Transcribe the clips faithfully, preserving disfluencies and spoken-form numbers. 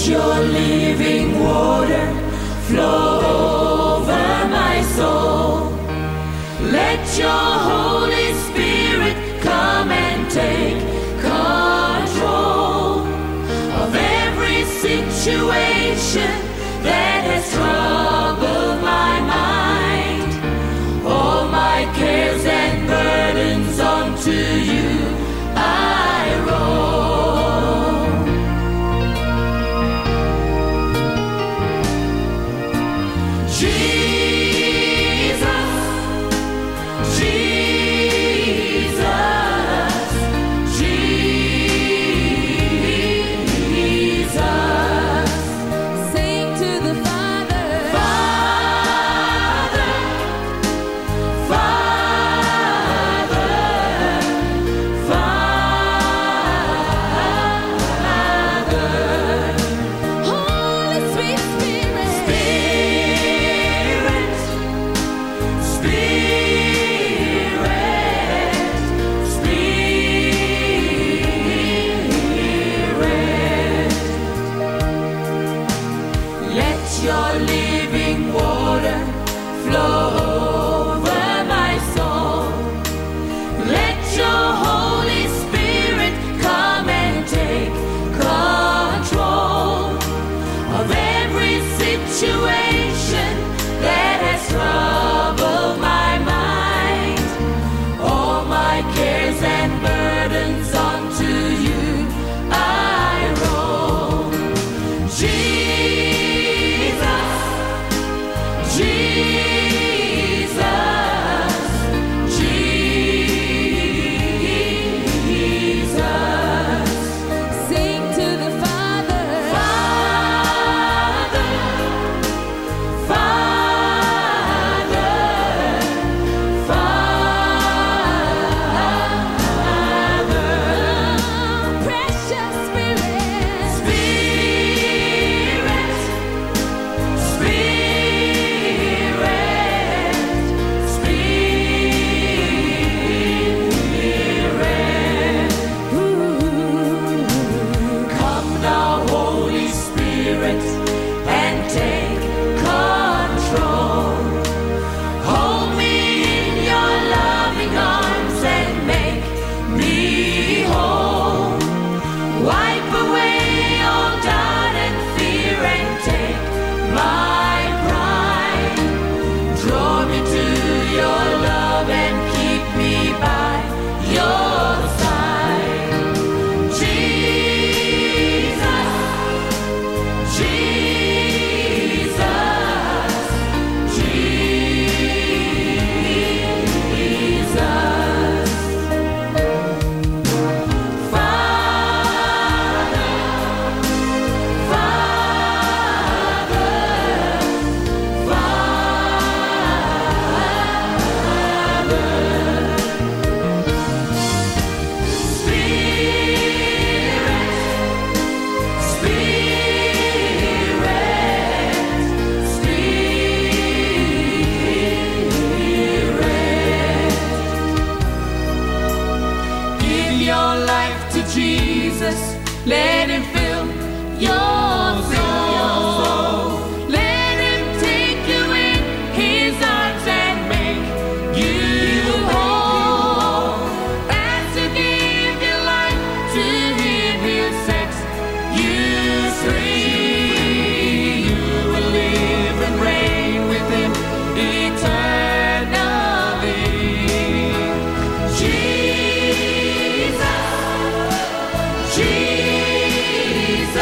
Your living water flow over my soul. Let your Holy Spirit come and take control of every situation that has troubled my mind. All my cares and burdens unto you I roll. Jesus, Jesus, Jesus. Sing to the Father. Father, Father, Father. Holy sweet Spirit. Spirit, Spirit, Spirit. Let your living water flow over my soul. Let your Holy Spirit come and take control of every situation that has troubled my mind. All my cares and burdens unto you I roll. Jesus, Jesus, Jesus. Sing to the Father. Father, Father, Father. Precious Spirit. Spirit, Spirit. Ooh. Come now, Holy Spirit, and take control. Hold me in your loving arms and make me whole. Wipe away all doubt and fear and take my pride. Draw me to your love and keep me by your side. Jesus, Jesus, Jesus. Father, Father, Father. Spirit, Spirit, Spirit. Give your life to Jesus. Let him fill your soul. Let him take you in his arms and make you whole. As you give your life to him, he'll set you free. You will live and reign with him eternally. Jesus, Jesus,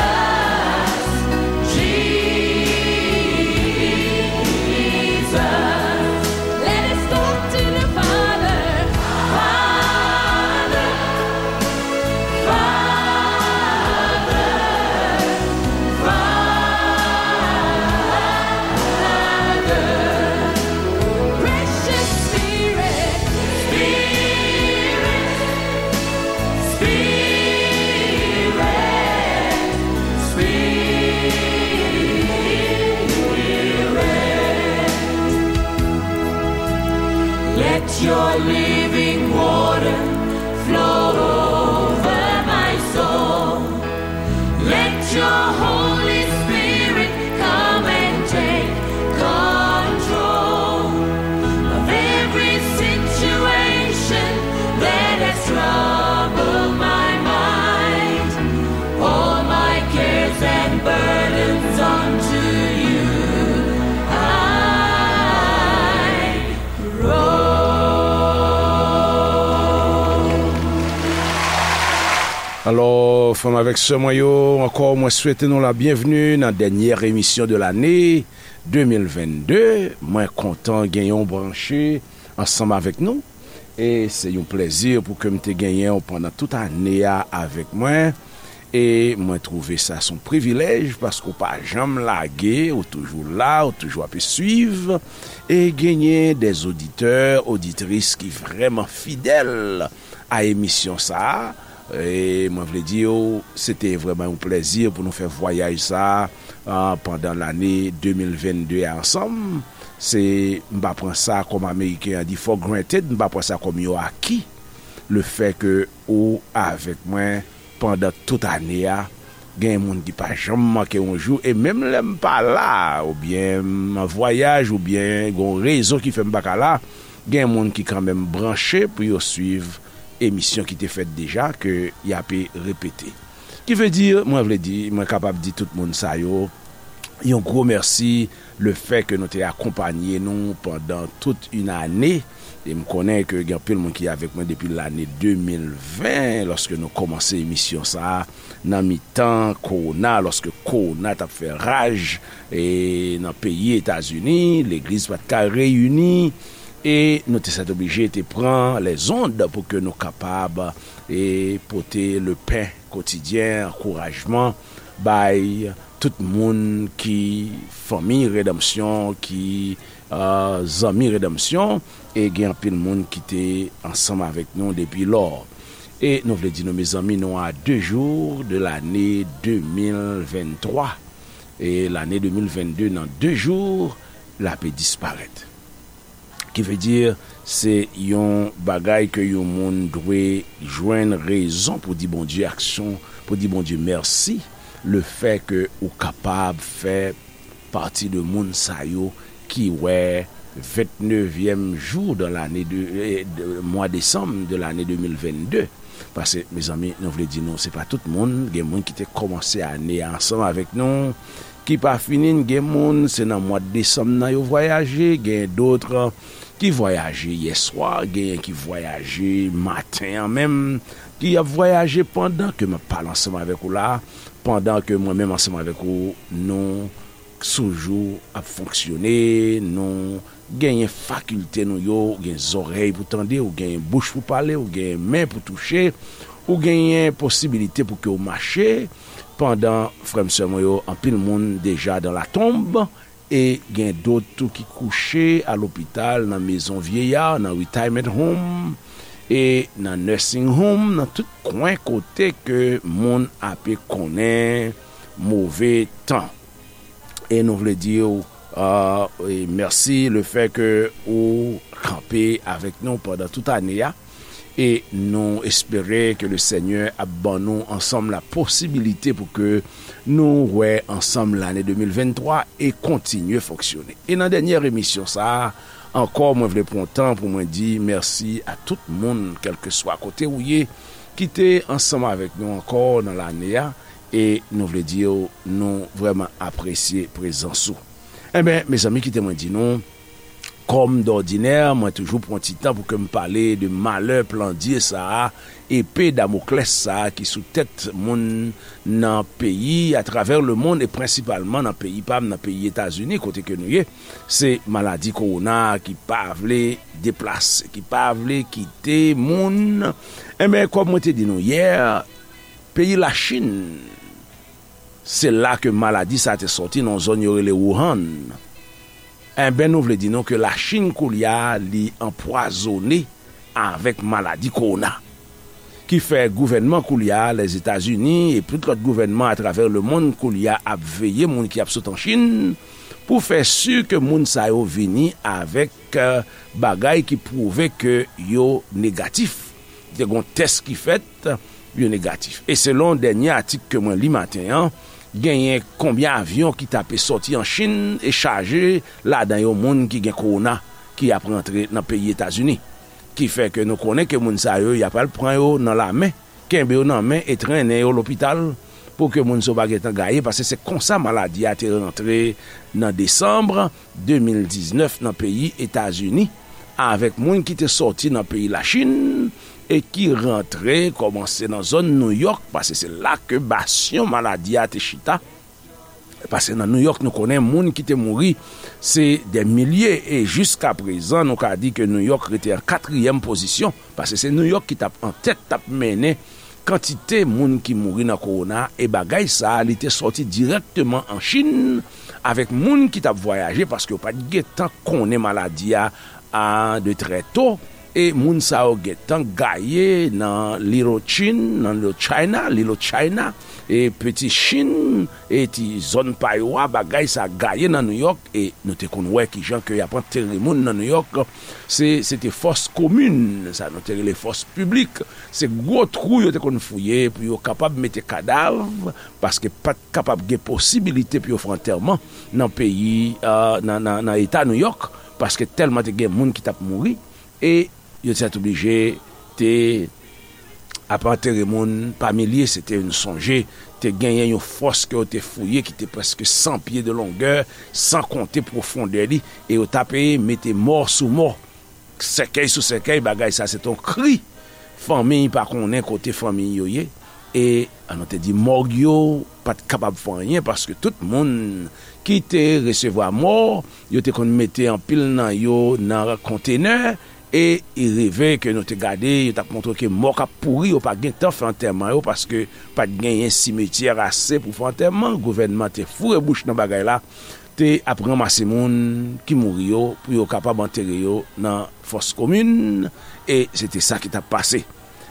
Alò, frè m avèk sè mwen yo, ankò, mwen swete nou la byenvni nan dènyè emisyon de lane de mil vennde. Mwen kontan genyen w branche ansanm avèk nou. E se yon plèzi pou ke m te genyen w pandan tout ane a avèk mwen. E mwen twouve sa se yon privilèj paske w pa janm lage, ou toujou la, ou toujou ap swiv. E genyen dè oditè, oditris ki vrèman fidèl a emisyon sa a. E mwen vle di w, se te vrèman yon plèzi pou nou fè vwayaj sa a, a, pandan lane de mil vennde a ansanm. Se, m pa pran sa kòm Ameriken an di for granted, m pa pran sa kòm yon aki. Le fè ke ou avèk mwen pandan tout ane a, gen moun ki pa janm manke yon jou, e menm lè m pa la, oubyen m an vwayaj, oubyen gen yon rezon ki fè m pa ka la, gen moun ki kanmenm branche pou yo swiv emisyon ki te fèt deja, ke y ape repete. Ki vle di, mwen vle di, mwen kapab di tout moun sa yo, yon gwo mèsi, le fè ke nou te akonpanye nou pandan tout yon ane. E m konnen ke gen anpil moun ki avèk mwen depi lane de mil ven, lòske nou kòmanse emisyon sa a, nan mitan kowona, lòske kowona t ap fè raj, e, nan peyi Etazini, legliz pa t ka reyini, e nou te sètoblije te pran lèzond pou ke nou kapab, e, pote le pen kotidyen, ankourajman, bay tout moun ki fanmi redanmsyon, ki, a, zanmi redanmsyon, e gen anpil moun ki te ansanm avèk nou depi lò. E nou vle di nou, mezanmi, nou a de jou de lane de mil venntwa. E lane de mil vennde, nan de jou, l ape disparèt. Ki vle di, se yon bagay ke yon moun dwe jwenn rezon pou di Bondye aksyon, pou di Bondye mèsi, le fè ke ou kapab fè pati de moun sa yo ki wè vennnevyèm jou de lane de, eh, de mwa desanm de lane de mil vennde. Paske, mezanmi, nou vle di nou, se pa tout moun. Gen moun ki te kòmanse ane a ansanm avèk nou, ki pa fini n. Gen moun, se nan mwa desanm nan yo vwayaje. Gen dòt ki vwayaje yèswa. Genyen ki vwayaje maten an menm, ki ap vwayaje pandan ke m ap pale ansanm avèk ou la, pandan ke mwen menm ansanm avèk ou, nou sou jou ap fonksyone, nou genyen fakilte nou yo, ou gen zòrèy pou tande, ou genyen bouch pou pale, ou genyen men pou touche, ou genyen posibilite pou ke w mache, pandan, frè m, sè mwen yo, anpil moun deja dans la tombe, e gen dòt tou ki kouche a lopital, nan mezon vyeya, nan retirement home, e nan nursing home, nan tout kwen kote ke moun ape konnen move tan. E nou vle di w, a, e mèsi le fè ke ou kanpe avèk nou pandan tout ane a. E nou espere ke le Senyè ap ban nou ansanm la posibilite pou ke nou wè ansanm lane de mil venntwa e kontinye fonksyone. E nan dènyè emisyon sa a, ankò, mwen vle pran tan pou mwen di mèsi a tout moun, kèlkeswa kote ou ye, ki te ansanm avèk nou ankò nan lane a, e nou vle di w, nou vrèman apresye prezans ou. Enben, mezanmi, kite mwen di nou, kòm dòdinè, mwen toujou pran ti tan pou ke m pale de malè plandye sa a, epe Damoklès sa a ki sou tèt moun nan peyi, atravè lemonn, e prensipalman nan peyi pa m, nan peyi Etazini, kote ke nou ye. Se maladi kowona ki pa vle deplase, ki pa vle kite moun. Enben, kòm mwen te di nou yè, peyi Lachin, se la ke maladi sa a te sòti, nan yon zòn yo rele Wuhan. Enben, nou vle di nou ke Lachin koulye a, li anpwazone avèk maladi kowona. Ki fè gouvènman koulye a, Lèzetazini, e tout lòt gouvènman atravè lemonn koulye a ap veye moun ki ap sot an Chin, pou fè si ke moun sa yo vini avèk, eh, bagay ki pwouve ke yo negatif. Te gon tès ki fèt, yo negatif. E selon dènye atik ke mwen li maten an, genyen konbyen avyon ki t ape sòti an Chin e chaje ladan yo moun ki gen kowona ki ap rantre nan peyi Etazini. Ki fè ke nou konnen ke moun sa yo, y ap al pran yo nan lamen, kenbe yo nan men e trennen yo lopital pou ke moun sa yo pa gentan gaye, paske se konsa maladi a te rantre nan desanm de mil diznèf nan peyi Etazini, avèk moun ki te sòti nan peyi Lachin, e ki rantre, kòmanse nan zòn Nouyòk, paske se la ke basyon maladi a te chita. Paske nan Nouyòk, nou konnen moun ki te mouri, se dè milye, e jiska prezan, nou ka di ke Nouyòk rete an katriyèm pozisyon, paske se Nouyòk ki t ap an tèt, t ap mennen kantite moun ki mouri nan kowona, e bagay sa a, li te sòti dirèkteman an Chin, avèk moun ki t ap vwayaje, paske yo pa t gentan konnen maladi a, a, de trè to, e moun sa yo gentan gaye nan Little Chin, nan Little China, Little China, e Peti Chin, e ti zòn pa yo a, bagay sa gaye nan Nouyòk, e nou te konn wè kijan ke y ap antere moun nan Nouyòk, se, se te fòs komin, sa nou te rele fòs piblik, se gwo twou yo te konn fouye pou yo kapab mete kadav, paske pa t kapab gen posibilite pou yo fè antèman nan peyi, euh, nan, nan, nan eta Nouyòk, paske tèlman te gen moun ki t ap mouri, e yo te oblije te ap antere moun pa milye, se te yon sonje, te genyen yon fòs ke yo te fouye ki te prèske san pye de longè, san konte pwofondè li, e yo t ape mete mò sou mò, sèkèy sou sèkèy, bagay sa se te yon kri. Fanmi pa konnen kote fanmi yo ye, e, an nou te di, mòg yo pa t kapab fè anyen, paske tout moun ki te resevwa mò, yo te konn mete anpil nan yo nan kontenè, e i rive ke nou te gade, yo t ap montre ke mò k ap pouri, yo pa gen tan fè antèman yo, paske pa t genyen simetyè ase pou fè antèman. Gouvènman te foure bouch nan bagay la, te ap ranmase moun ki mouri yo pou yo kapab antere yo nan fòs komin, e se te sa ki t ap pase.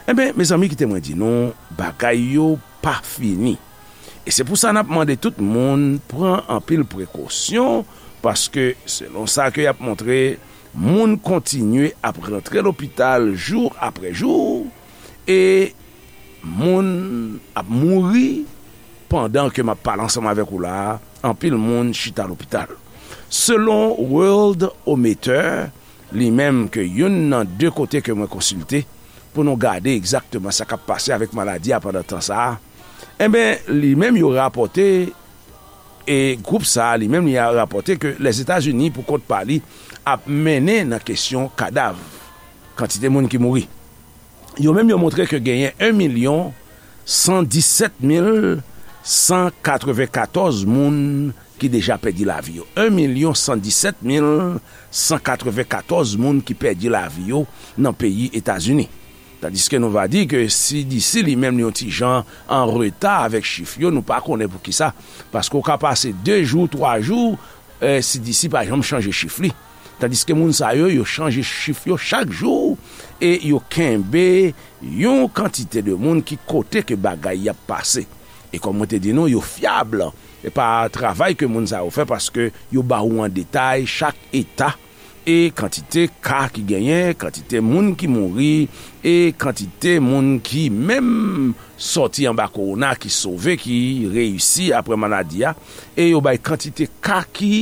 Enben, mezanmi, kite mwen di nou, bagay yo pa fini. E se pou sa n ap mande tout moun pran anpil prekosyon, paske selon sa ke y ap montre, moun kontinye ap rantre lopital jou apre jou, e moun ap mouri pandan ke m ap pale ansanm avèk ou la a, anpil moun chita lopital. Selon Worldometer, li menm ke youn nan de kote ke mwen konsilte pou nou gade egzakteman sa k ap pase avèk maladi a pandan tan sa a, enben, li menm yo rapòte, e gwoup sa a, li menm, li a rapòte ke Lèzetazini, pou kont pa li, ap mennen nan kesyon kadav, kantite moun ki mouri. Yo menm, yo montre ke genyen en milyon san disèt mil san katrevenkatòz moun ki deja pèdi lavi yo. En milyon san disèt mil san katrevenkatòz moun ki pèdi lavi yo nan peyi Etazini. Tandiske nou va di ke C D C li menm li yon ti jan an reta avèk chif yo, nou pa konnen poukisa. Paske w ka pase de jou, twa jou, eh, C D C pa janm chanje chif li. Tandiske moun sa yo, yo chanje chif yo chak jou e yo kenbe yon kantite de moun ki kote ke bagay y ap pase. E kòm mwen te di nou, yo fyab. E pa travay ke moun sa yo fè, paske yo ba ou an detay chak eta e kantite ka ki genyen, kantite moun ki mouri, e kantite moun ki menm sòti anba kowona, ki sove, ki reyisi apre maladi a, e yo bay kantite ka ki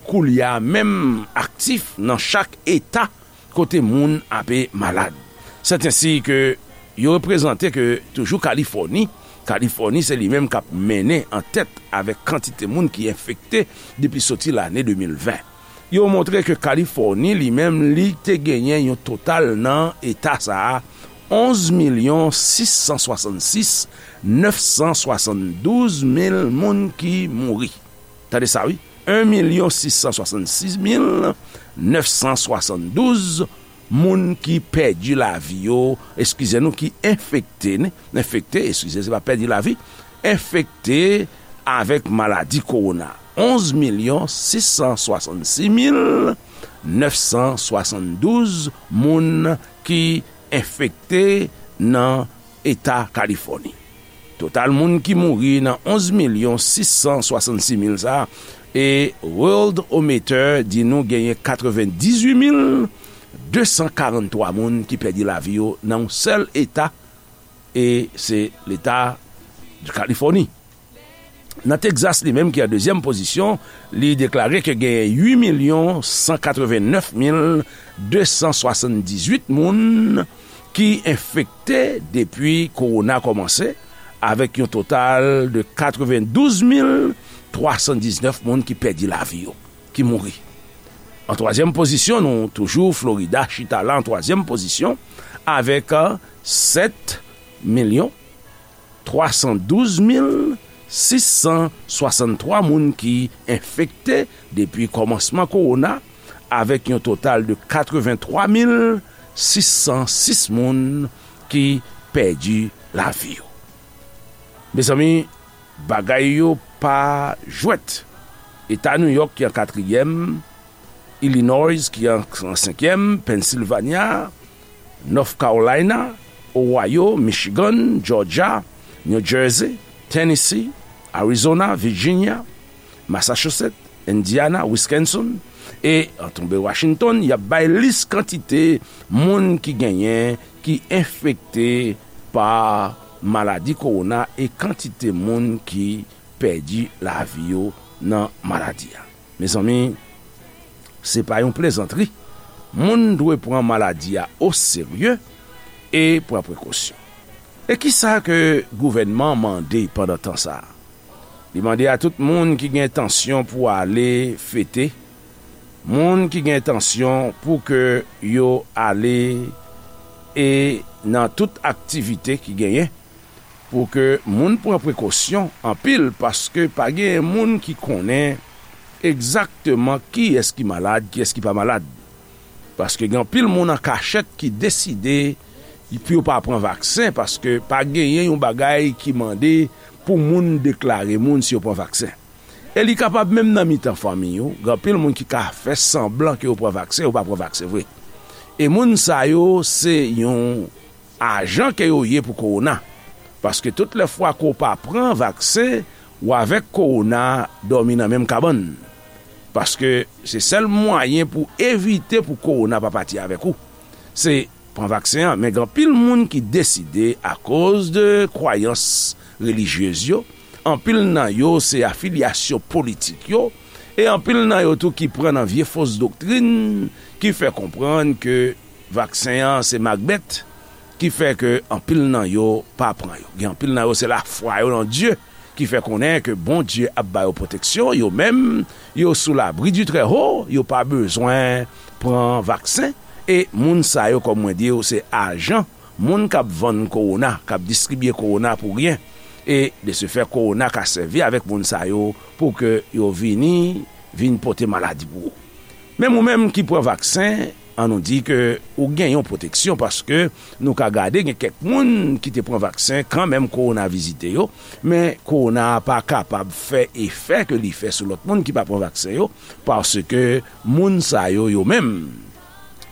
koulye a menm aktif nan chak eta kote moun ape malad. Sètensèten ke yo reprezante ke toujou Kalifòni, Kalifòni se li menm k ap mennen an tèt avèk kantite moun ki enfekte depi soti lane de mil ven. Yo montre ke Kalifòni li menm li te genyen yon total nan eta sa a, onz milyon sis san swasannsis nèf san swasanndouz mil moun ki mouri. Tande sa wi, en milyon sis san swasannsis mil nèf san swasanndouz moun ki pèdi lavi yo, eskize nou, ki enfekte, enfekte, eskize, se pa pèdi lavi, enfekte avèk maladi kowona. Onz milyon sis san swasannsis mil nèf san swasanndouz moun ki enfekte nan eta Kalifòni. Total moun ki mouri nan onz milyon sis san swasannsis mil sa a, e Worldometer di nou genyen katrevendizuit mil de san karanntwa moun ki pèdi lavi yo nan yon sèl eta, e se leta Kalifòni. Nan Texas, li menm ki an dezyèm pozisyon, li deklare ke genyen uit milyon san katrevennèf mil de san swasanndizuit moun ki enfekte depi kowona kòmanse, avèk yon total de katrevendouz mil twa san diznèf moun ki pèdi lavi yo, ki mouri. An twazyèm pozisyon, nou toujou Florida, chita la an twazyèm pozisyon, avèk, euh, Sèt milyon twa san douz mil sis san swasanntwa moun ki enfekte depi kòmansman kowona, avèk yon total de katrevenntwa mil sis san sis moun ki pèdi lavi yo. Mezanmi, bagay yo pa jwèt. Eta New York ki an katriyèm, Illinois ki an, an senkyèm, Pennsylvania, North Carolina, Ohio, Michigan, Georgia, New Jersey, Tennessee, Arizona, Virginia, Massachusetts, Indiana, Wisconsin, e an tonbe Washington, y ap bay lis kantite moun ki genyen, ki enfekte pa maladi kowona e kantite moun ki pèdi lavi yo nan maladi a. Mezanmi, se pa yon plezantri. Moun dwe pran maladi a o serye e pran prekosyon. E kisa ke gouvènman mande pandan tan sa a? Li mande a tout moun ki gen entansyon pou ale fete, moun ki gen entansyon pou ke yo ale e nan tout aktivite ki genyen, pou ke moun pran prekosyon anpil, paske pa gen moun ki konnen egzakteman kiyès ki malad, kiyès ki pa malad. Paske gen anpil moun an kachèt ki deside pou yo pa pran vaksen, paske pa genyen yon bagay ki mande pou moun deklare moun si yo pran vaksen. E li kapab menm nan mitan fanmi yo, gen anpil moun ki ka fè sanblan ke yo pran vaksen, yo pa pran vaksen vre. E moun sa yo, se yon ajan ke yo ye pou kowona. Paske tout lè fwa ke w pa pran vaksen, ou avèk kowona dòmi nan menm kabann. Paske se sèl mwayen pou evite pou kowona pa pati avèk ou, se pran vaksen an. Men gen anpil moun ki deside, akoz de kwayans relijyez yo, anpil nan yo se afilyasyon politik yo, e anpil nan yo tou ki pran nan vye fos doktrin ki fè konprann ke vaksen an se makbèt, ki fè ke anpil nan yo pa pran yo. Gen anpil nan yo se lafwa yo nan Dye ki fè konnen ke Bondye ap ba yo pwoteksyon, yo menm, yo sou labri di Trèho, yo pa bezwen pran vaksen. E moun sa yo, kòm mwen di w, se ajan, moun k ap vann kowona, k ap distribye kowona pou ryen. E de se fè, kowona ka sèvi avèk moun sa yo pou ke yo vini, vin pote maladi pou ou. Menm ou menm ki pran vaksen, an nou di ke ou gen yon pwoteksyon, paske nou ka gade gen kèk moun ki te pran vaksen kanmenm kowona vizite yo, men kowona a pa kapab fè efè ke li fè sou lòt moun ki pa pran vaksen yo, paske moun sa yo, yo menm,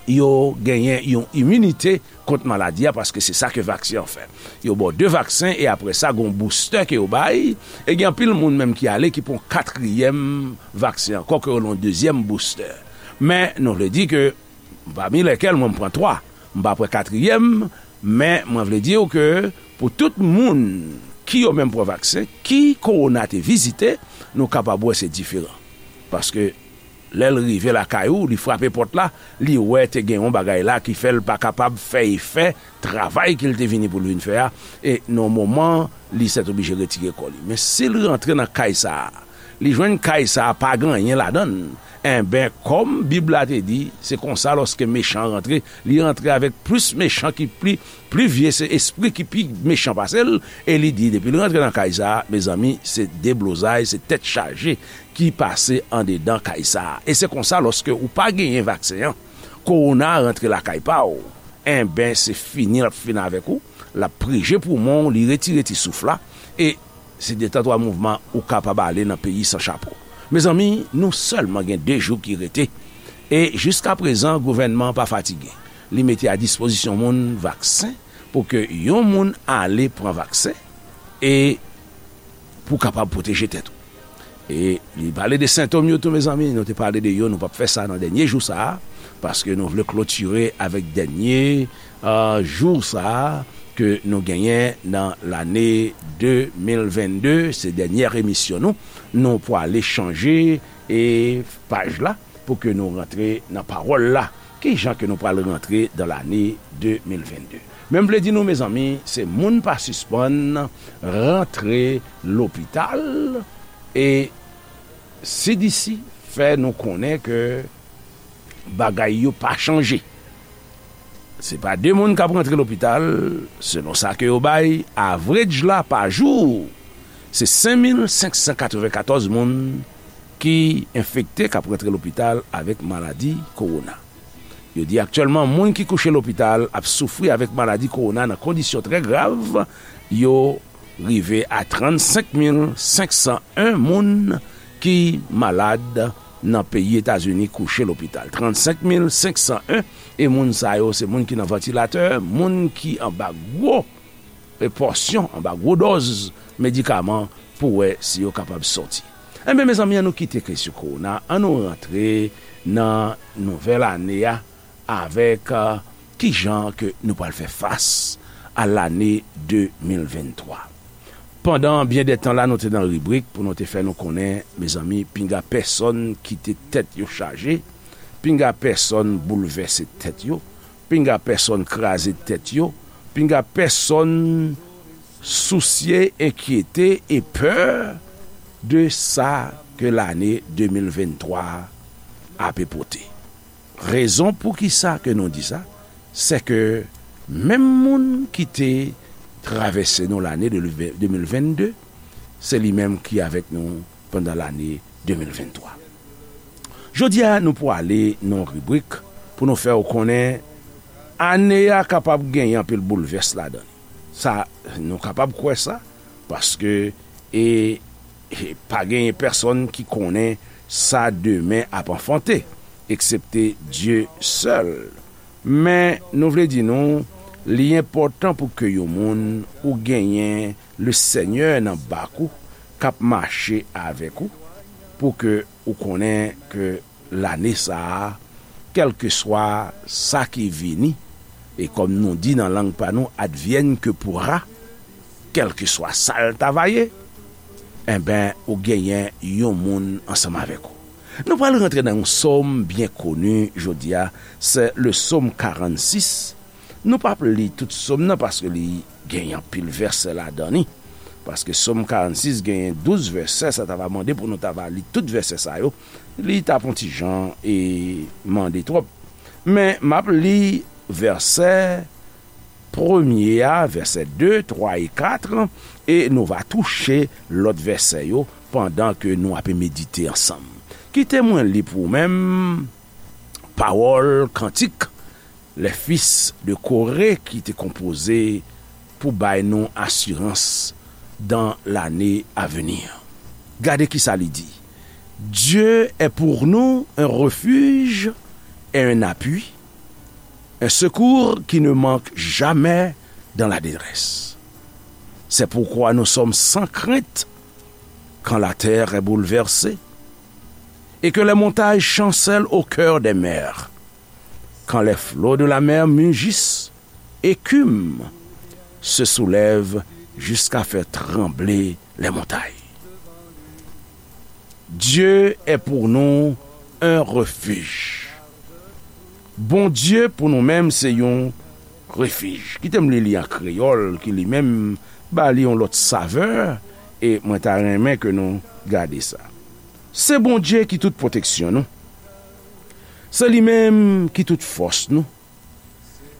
yo genyen yon iminite kont maladi a, paske se sa ke vaksen an fè. Yo ba w de vaksen e apre sa, gen yon boustè ke yo bay, e gen anpil moun menm ki ale ki pran katriyèm vaksen ankò, ke yo rele yon dezyèm boustè. Men nou vle di ke, pami lèkèl mwen, m pran twa, m pa pran katriyèm, men mwen vle di w ke pou tout moun ki yo menm pran vaksen, ki kowona te vizite, nou kapab wè se diferan. Paske lè l rive lakay ou, li frape pòt la, li wè te gen yon bagay la ki fè l pa kapab fè efè travay ke l te vini pou l vin fè a, e nan moman, li sètoblije retire kò li. Men si l rantre nan kay sa a, li jwenn kay sa a pa gen anyen ladan l, enben, kòm Bib la te di, se konsa lòske mechan an rantre, li rantre avèk plis mechan ki pli, pli vye, se espri ki pi mechan pase l, e li di, depi l rantre nan kay sa a, mezanmi, se deblozay, se tèt chaje ki pase andedan kay sa a. E se konsa, lòske ou pa genyen vaksen an, kowona rantre lakay pa w, enben, se fini l ap fini avèk ou, l ap prije poumon w, li retire ti souf la, e se de tan twa mouvman ou kapab ale nan peyi san chapo. Mezanmi, nou sèlman gen de jou ki rete, e jiskaprezan, gouvènman an pa fatige. Li mete a dispozisyon moun vaksen pou ke yon moun ale pran vaksen, e pou kapab pwoteje tèt ou. E li pale de sentòm yo tou, mezanmi, nou te pale de yo, nou p ap fè sa nan dènye jou sa a, paske nou vle klotire avèk dènye, euh, jou sa a ke nou genyen nan lane de mil vennde, se dènyè emisyon nou, nou pwale chanje e paj la pou ke nou rantre nan pawòl la. Ki jan ke nou pral rantre dan lane de mil vennde? Men m vle di nou, mezanmi, se moun pa sispann rantre lopital, e C D C fè nou konnen ke bagay yo pa chanje. Se pa de moun k ap rantre lopital, selon sa ke yo bay, average la pa jou, se senk mil senk san katrevenkatòz moun ki enfekte, k ap rantre lopital avèk maladi kowona. Yo di aktyèlman, moun ki kouche lopital ap soufri avèk maladi kowona nan kondisyon trè grav, yo rive a trannsenk mil senk san en moun ki malad nan peyi Etazini kouche lopital. Trannsenk mil senk san en, e moun sa yo se moun ki nan vantilatè, moun ki anba gwo e pòsyon, anba gwo dòz medikaman pou wè si yo kapab sòti. Enben, mezanmi, ann nou kite kesyon kowona, ann nou rantre nan nouvèl ane a avèk, euh, kijan ke nou pral fè fas a lane de mil venntwa. Pandan byen dè tan la, nou te nan ribrik pou nou te fè nou konnen, mezanmi, pinga pèsonn kite tèt yo chaje, pinga pèsonn boulvèse tèt yo, pinga pèsonn kraze tèt yo, pinga pèsonn sousye, enkyete e pè de sa ke lane de mil venntwa ape pote. Rezon poukisa ke nou di sa, se ke menm moun ki te travèse nou lane de, de mil vennde, se li menm ki avèk nou pandan lane de mil venntwa. Jodi a, nou pwale nan yon ribrik pou nou fè w konnen ane a kapab genyen anpil boulvès ladan li. Sa, nou kapab kwè sa, paske, e, e pa genyen pèsonn ki konnen sa demen ap anfante, eksepte Dye sèl. Men, nou vle di nou, li enpòtan pou ke yon moun ou genyen Lesenyè nan bak ou, k ap mache avèk ou, pou ke ou konnen ke lane sa a, kèlkeswa sa ki vini, e kòm nou di nan lang pa nou, advienne que pourra, kèlkeswa sa l ta va ye, enben, ou genyen yon moun ansanm avèk ou. Nou pral rantre nan yon sòm byen koni jodi a, se le sòm karannsis. Nou p ap li tout sòm nan paske li genyen anpil vèsè ladan li. Paske sòm karannsis genyen douz vèsè, sa ta va mande pou nou ta va li tout vèsè sa yo. Li t ap yon ti jan e mande twòp. Men m ap li vèsè premye a, vèsè de, twa e kat, e nou va touche lòt vèsè yo pandan ke nou ape medite ansanm. Kite mwen li pou ou menm pawòl kantik Les Fils de Corée ki te konpoze pou bay nou asirans dans l'année à venir. Gade ki sa li di. Dieu est pour nous un refuge et un appui, un secours qui ne manque jamais dans la détresse. C'est pourquoi nous sommes sans crainte quand la terre est bouleversée et que les montagnes chancellent au cœur des mers, quand les flots de la mer mugissent, écument, se soulèvent jusqu'à faire trembler les montagnes. Dieu est pour nous un refuge. Bondye pou nou menm se yon refij. Kite m li li an kreyòl, ki li menm ba li yon lòt savè, e mwen ta renmen ke nou gade sa. Se Bondye ki tout pwoteksyon nou. Se li menm ki tout fòs nou.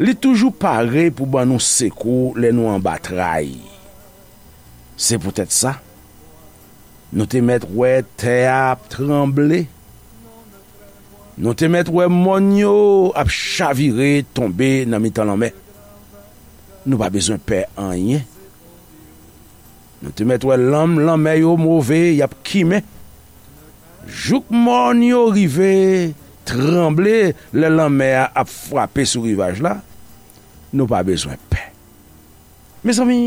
Li toujou pare pou ban nou sekou lè nou anba tray. Se poutèt sa, nou te mèt wè tè a ap tranble. Nou te mèt wè mòn yo ap chavire tonbe nan mitan lanmè. Nou pa bezwen pè anyen. Nou te mèt wè lanm lanmè yo move, y ap kimen. Jouk mòn yo rive tranble lè lanmè a ap frape sou rivaj la, nou pa bezwen pè. Mezanmi,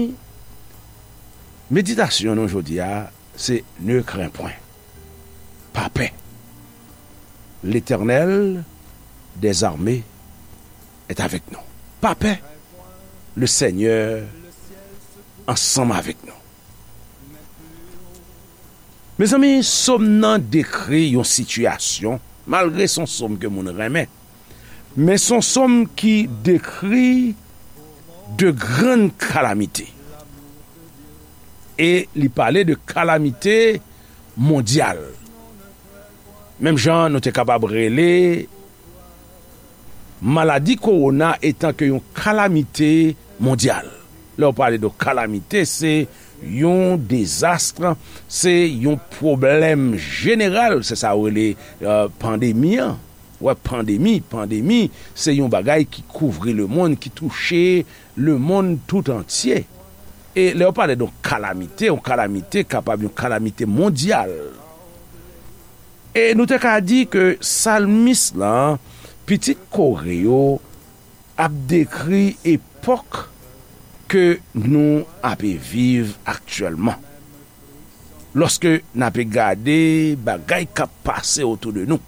meditasyon nou jodi a, se ne crains point. Pa pè. L'Éternel des armées est avec nous. Pa pè. Le Senyè ansanm avèk nou. Mezanmi, sòm nan dekri yon sitiyasyon, malgre se yon sòm ke moun renmen, men se yon sòm ki dekri de grann kalamite. E li pale de kalamite mondyal. Menm jan nou te kapab rele Maladi kowona etan ke yon kalamite mondyal. Lè w pale de kalamite, se yon dezas, se yon pwoblèm jeneral, se sa yo rele, euh, pandemi an. Wè, pandemi, pandemi, se yon bagay ki kouvri lemonn, ki touche lemonn tout antye. E lè yo pale de yon kalamite, yon kalamite kapab yon kalamite mondyal. E nou te ka di ke salmis lan, pitit Kore yo, ap dekri epòk ke nou ape viv aktyèlman. Lòske n ape gade bagay k ap pase otou de nou,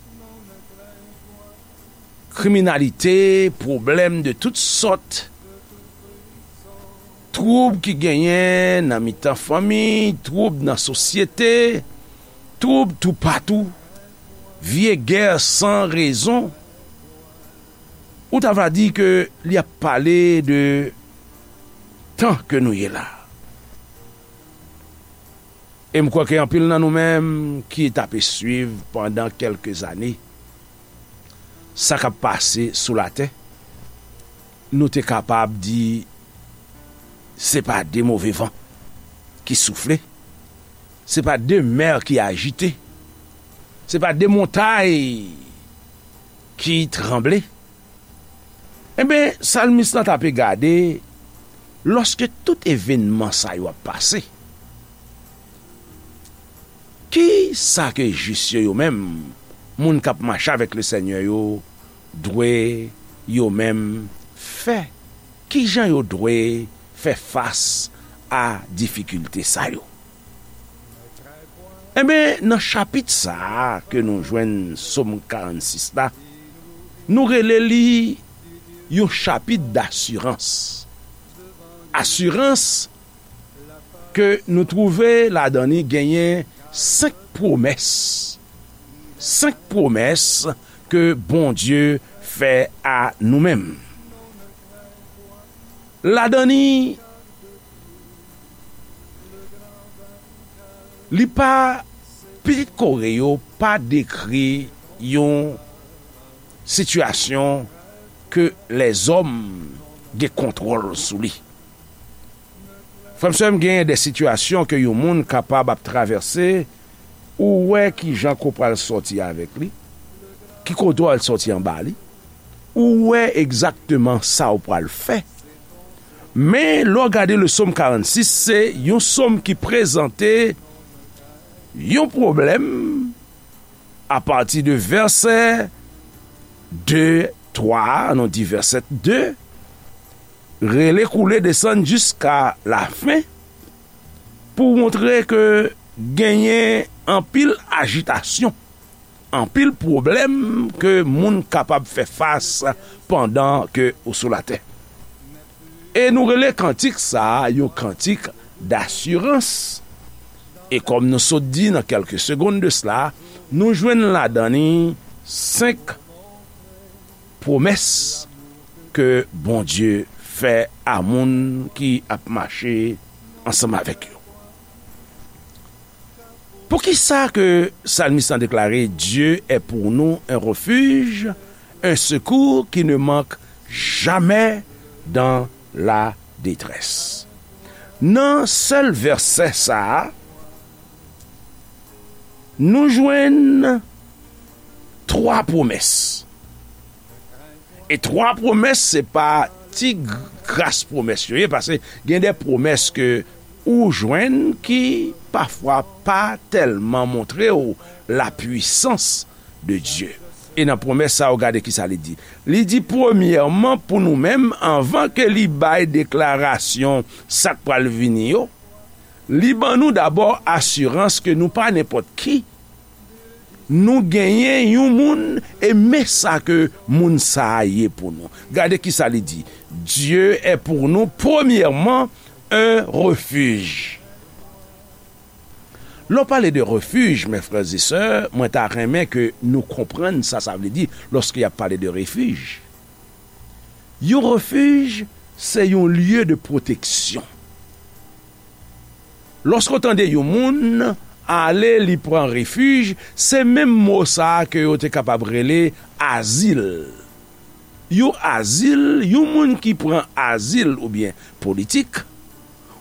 kriminalite, pwoblèm de tout sòt, twoub ki genyen nan mitan fanmi, twoub nan sosyete, twoub toupatou, vye gè san rezon, ou ta va di ke li ap pale de tan ke nou ye la. E m kwè ke anpil nan nou menm ki t ape swiv pandan kèlke zane sa k ap pase sou latè, nou te kapab di se pa de move van ki soufle, se pa de mè ki ajite, se pa de montay ki tranble. Enben, salmis lan t ape gade, lòske tout evènman sa yo ap pase, ki sa ke jis yo, yo menm, moun k ap mache avèk Lesenyè yo, dwe yo menm fè? Ki jan yo dwe fè fas a difikilte sa yo? Enben, nan chapit sa a ke nou jwenn Sòm karannsis la, nou rele li yon chapit dasirans. Asirans ke nou twouve ladan li genyen senk pwomès. Senk pwomès ke Bondye fè a nou menm. Ladan li, li pa, pitit Kore yo pa dekri yon sitiyasyon ke lèzòm gen kontwòl sou li. Frè m, sè m, genyen de sitiyasyon ke yon moun kapab ap travèse, ou wè ki jan ke w pral sòti avèk li, ki kote w al sòti anba li, ou wè egzakteman sa w pral fè. Men, lè w gade le Sòm karannsis, se yon sòm ki prezante yon pwoblèm apati de vèsè de, twa, ann nou di vèsè de, rele koule desann jiska lafen, pou montre ke genyen anpil ajitasyon, anpil pwoblèm ke moun kapab fè fas pandan ke ou sou latè. E nou rele kantik sa a yon kantik dasirans. E kòm nou sot di nan kèlke segonn de sela, nou jwenn ladan li senk pwomès ke Bondye fè a moun ki ap mache ansanm avèk yo. Poukisa ke salmis lan deklare, Dieu est pour nous un refuge, un secours qui ne manque jamais dans la détresse? Nan sèl vèsè sa a, nou jwenn twa pwomès. E twa pwomès, se pa ti gras pwomès yo ye, paske gen de pwomès ke ou jwenn ki pafwa pa tèlman montre w lapwisans de Dye. E nan pwomès sa yo, gade kisa li di. Li di, premyèman, pou nou menm, anvan ke li bay deklarasyon sa k pral vini yo, li ban nou dabò asirans ke nou pa nenpòt ki. Nou genyen yon moun, e men sa ke moun sa a ye pou nou. Gade kisa li di. Dieu est pour nous, premièrement, un refuge. Lè w pale de refij, mes frères et sœurs, mwen ta renmen ke nou konprann sa sa vle di lòske y ap pale de refij. Yon refij, se yon lye de pwoteksyon. Lòske w tande yon moun ale, li pran refij, se menm mo sa a ke yo te kapab rele azil. Yon azil, yon moun ki pran azil oubyen politik,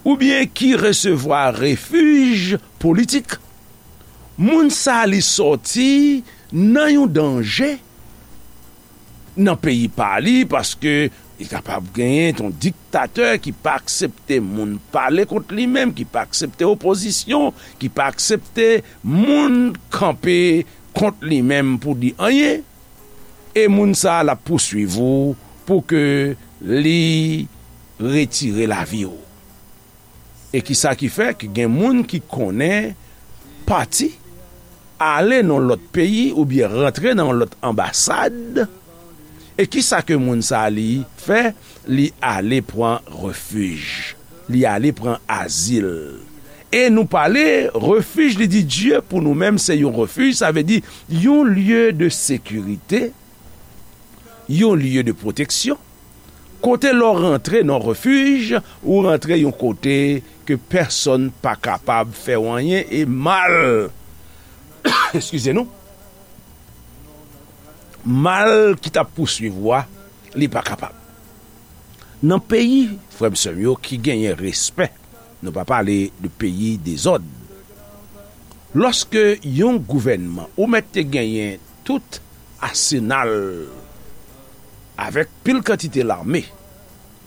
oubyen ki resevwa refij politik, moun sa li sòti nan yon danje nan peyi pa li, paske li kapab genyen yon diktatè ki pa aksepte moun pale kont li menm, ki pa aksepte opozisyon, ki pa aksepte moun kanpe kont li menm pou di anyen, e moun sa a l ap pouswiv ou pou ke li retire lavi w. E kisa ki fè ke gen moun ki konnen pati ale nan lòt peyi oubyen rantre nan lòt anbasad? E kisa ke moun sa a li fè? Li ale pran refij. Li ale pran azil. E nou pale refij, li di Dye pou nou menm se yon refij, sa vle di yon lye de sekirite, yon lye de pwoteksyon, kote lè w rantre nan refij, ou rantre yon kote ke pèsonn pa kapab fè w anyen e mal, eskize nou, mal ki t ap pouswiv ou a, li pa kapab. Nan peyi, frè m, sè m yo, ki genyen respè, nou pa pale de peyi dezòd. Lòske yon gouvènman, ou mèt te genyen tout asenal avèk pil kantite lame,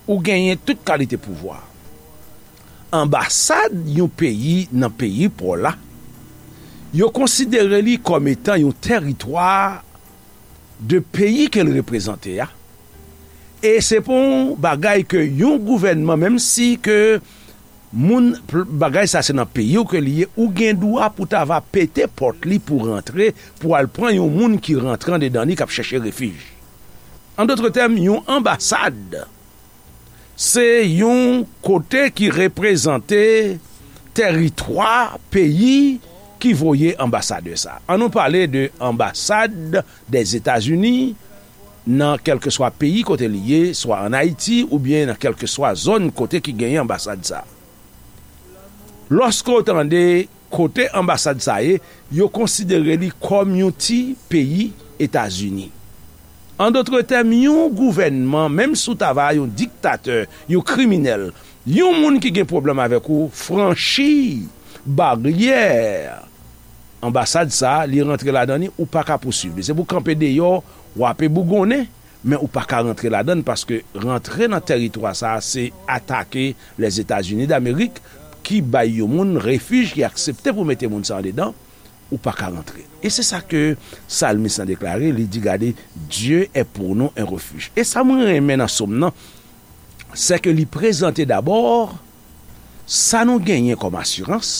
ou genyen tout kalite pouvwa. Anbasad yon peyi nan peyi pa w la, yo konsidere li kòm etan yon tèritwa de peyi ke l reprezante a. E se pa yon bagay ke yon gouvènman, menm si ke moun, bagay sa se nan peyi w ke li ye, ou gen dwa pou ta va pete pòt li pou rantre, pou al pran yon moun ki rantre andedan li k ap chèche refij. An dòt tèm, yon anbasad se yon kote ki reprezante tèritwa peyi ki voye anbasadè sa. An nou pale de anbasad dèzetazini nan kèlkeswa peyi kote li ye, swa ann Ayiti oubyen nan kèlkeswa zòn kote ki genyen anbasad sa. Lòske w tande kote anbasad sa ye, yo konsidere li kòm yon ti peyi Etazini. An dòt tèm, yon gouvènman, menm si w ta va yon diktatè, yon kriminèl, yon moun ki gen pwoblèm avèk ou, franchi baryè anbasad sa, li rantre ladan li, ou pa ka pouswiv li. Se pou kanpe deyò, w ape bougonnen, men ou pa ka rantre ladan l, paske rantre nan tèritwa sa a se atake Lèzetazini Damerik ki bay yon moun refij, ki aksepte pou mete moun sa andedan, ou pa ka rantre. E se sa ke salmis lan deklare, li di, gade, Dieu est pour nous un refuge. E sa mwen renmen nan sòm nan, se ke li prezante dabò sa nou genyen kòm asirans,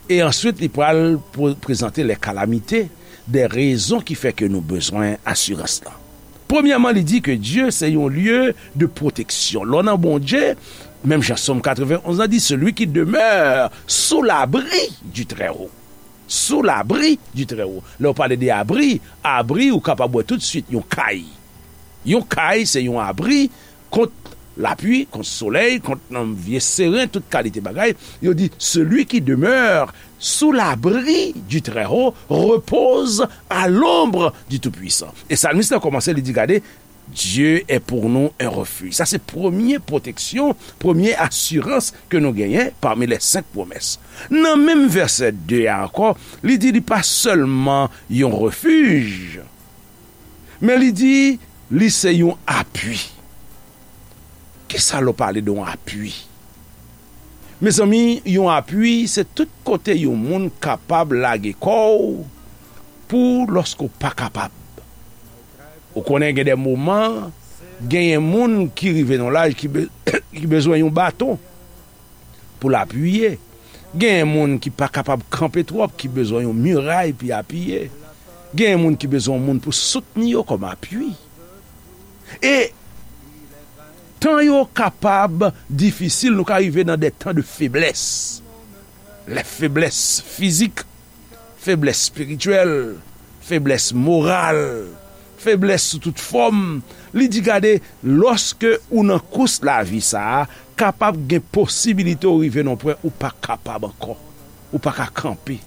e answit li pral pre-, prezante les calamités, des raisons ki fè ke nou bezwen asirans lan. Premyèman, li di ke Dye se yon lye de pwoteksyon. Lè w nan Bondye, menm jan Sòm katrevenn onz lan di, celui qui demeure sous l'abri du Très-Haut. Sous l'abri du Très-Haut. Lè w pale de abri, abri, ou kapab wè toutswit yon kay. Yon kay, se yon abri kont lapli, kont solèy, kont, um, vye seren, tout kalite bagay. Yo di, celui qui demeure sous l'abri du Très-Haut repose à l'ombre du Tout-Puissant. E salmis lan kòmanse, li di, gade, Dieu est pour nous un refuge. Sa se premye pwoteksyon, premye asirans ke nou genyen pami les cinq promesses. Nan menm vèsè de a ankò, li di li pa sèlman yon refij, men li di li se yon apui. Kisa lè w pale de yon apui? Mezanmi, yon apui se tout kote yon moun kapab lage kò w pou lòske w pa kapab. Ou konnen gen de moman, genyen moun ki rive nan laj ki be-, ki bezwen yon baton pou l apiye. Genyen moun ki pa kapab kanpe twòp, ki bezwen yon miray pou y apiye. Genyen moun ki bezwen yon moun pou soutni yo kòm apui. E tan yo kapab difisil, nou ka rive nan de tan de feblès. Les faiblesses physiques, feblès espirityèl, feblès moral, feblès sou tout fòm. Li di, gade, lòske ou nan kous lavi sa a, kapab gen posibilite ou rive nan pwen ou pa kapab ankò. Ou pa ka kanpe.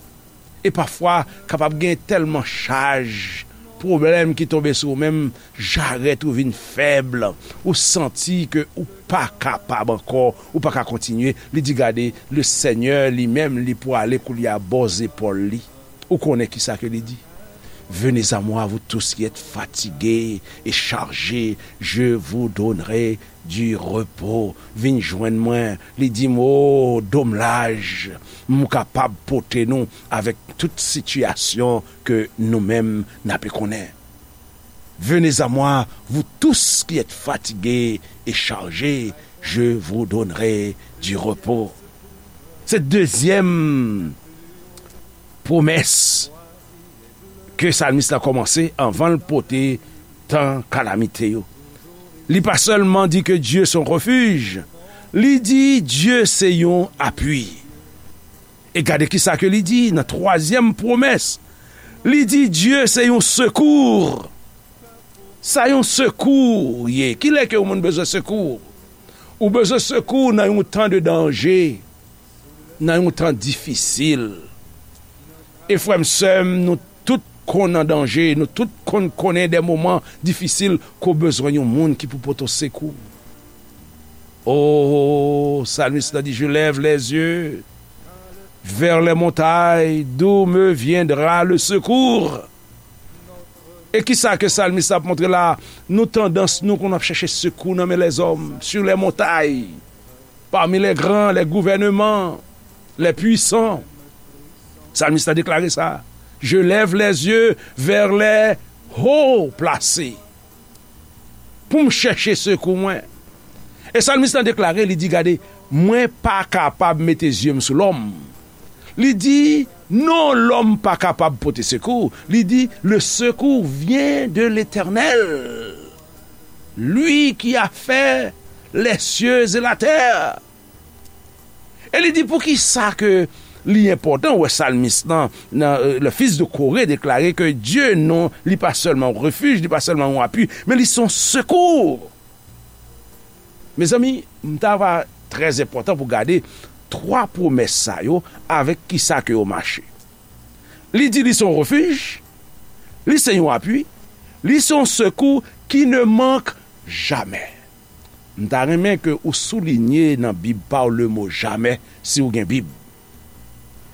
E pafwa, kapab gen tèlman chaj pwoblèm ki tonbe sou ou menm, jarèt ou vin fèb, ou santi ke ou pa kapab ankò, ou pa ka kontinye. Li di, gade, le Senyè li menm, li pwale koulye a bò zepòl li. Ou konnen kisa ke li di? Venez à moi, vous tous qui êtes fatigués et chargés, je vous donnerai du repos. Vin jwenn mwen, li di m, o, do m laj, m kapab pote nou avèk tout sitiyasyon ke nou menm n ape konnen. Venez à moi, vous tous qui êtes fatigués et chargés, je vous donnerai du repos. Se dezyèm pwomès ke salmis la kòmanse anvan l pote tan kalamite yo. Li pa sèlman di ke Dye se yon refij, li di Dye se yon apui. E gade kisa ke li di nan twazyèm pwomès. Li di Dye se yon sekou. Sa yon sekou ye. Kilè ke yon moun bezwen sekou? Ou bezwen sekou nan yon tan de danje, nan yon tan difisil. E frè m, sè m, nou tout konn an danje, nou tout konn konnen de moman difisil ke w bezwen yon moun ki pou pote w sekou. O, salmis la di, je lève les yeux vers les montagnes, d'où me viendra le secours? E kisa ke salmis la ap montre la? Nou tandans nou konn ap chèche sekou nan men lèzòm, sur les montagnes, parmi les grands, les gouvernements, les puissants. Salmis la deklare sa. Je lève les yeux vers les hauts placés. Pou m chèche sekou mwen. E salmis la deklare, li di, gade, mwen pa kapab mete zye m sou lòm. Li di, non, lòm pa kapab pote sekou. Li di, le secours vient de l'Éternel, lui qui a fait les cieux et la terre. E li di, poukisa ke li enpòtan, wè, salmis lan, nan, euh, le fils de Coré deklare ke Dye non, li pa sèlman yon refij, li pa sèlman yon apui, men li se yon sekou. Mezanmi, m ta va trè enpòtan pou gade twa pwomès sa yo avèk kisa ke yo mache. Li di li se yon refij, li se yon apui, li se yon sekou ki ne mank jamè. M ta renmen ke ou soulinye nan Bib pa w le mo jamè, si w gen Bib.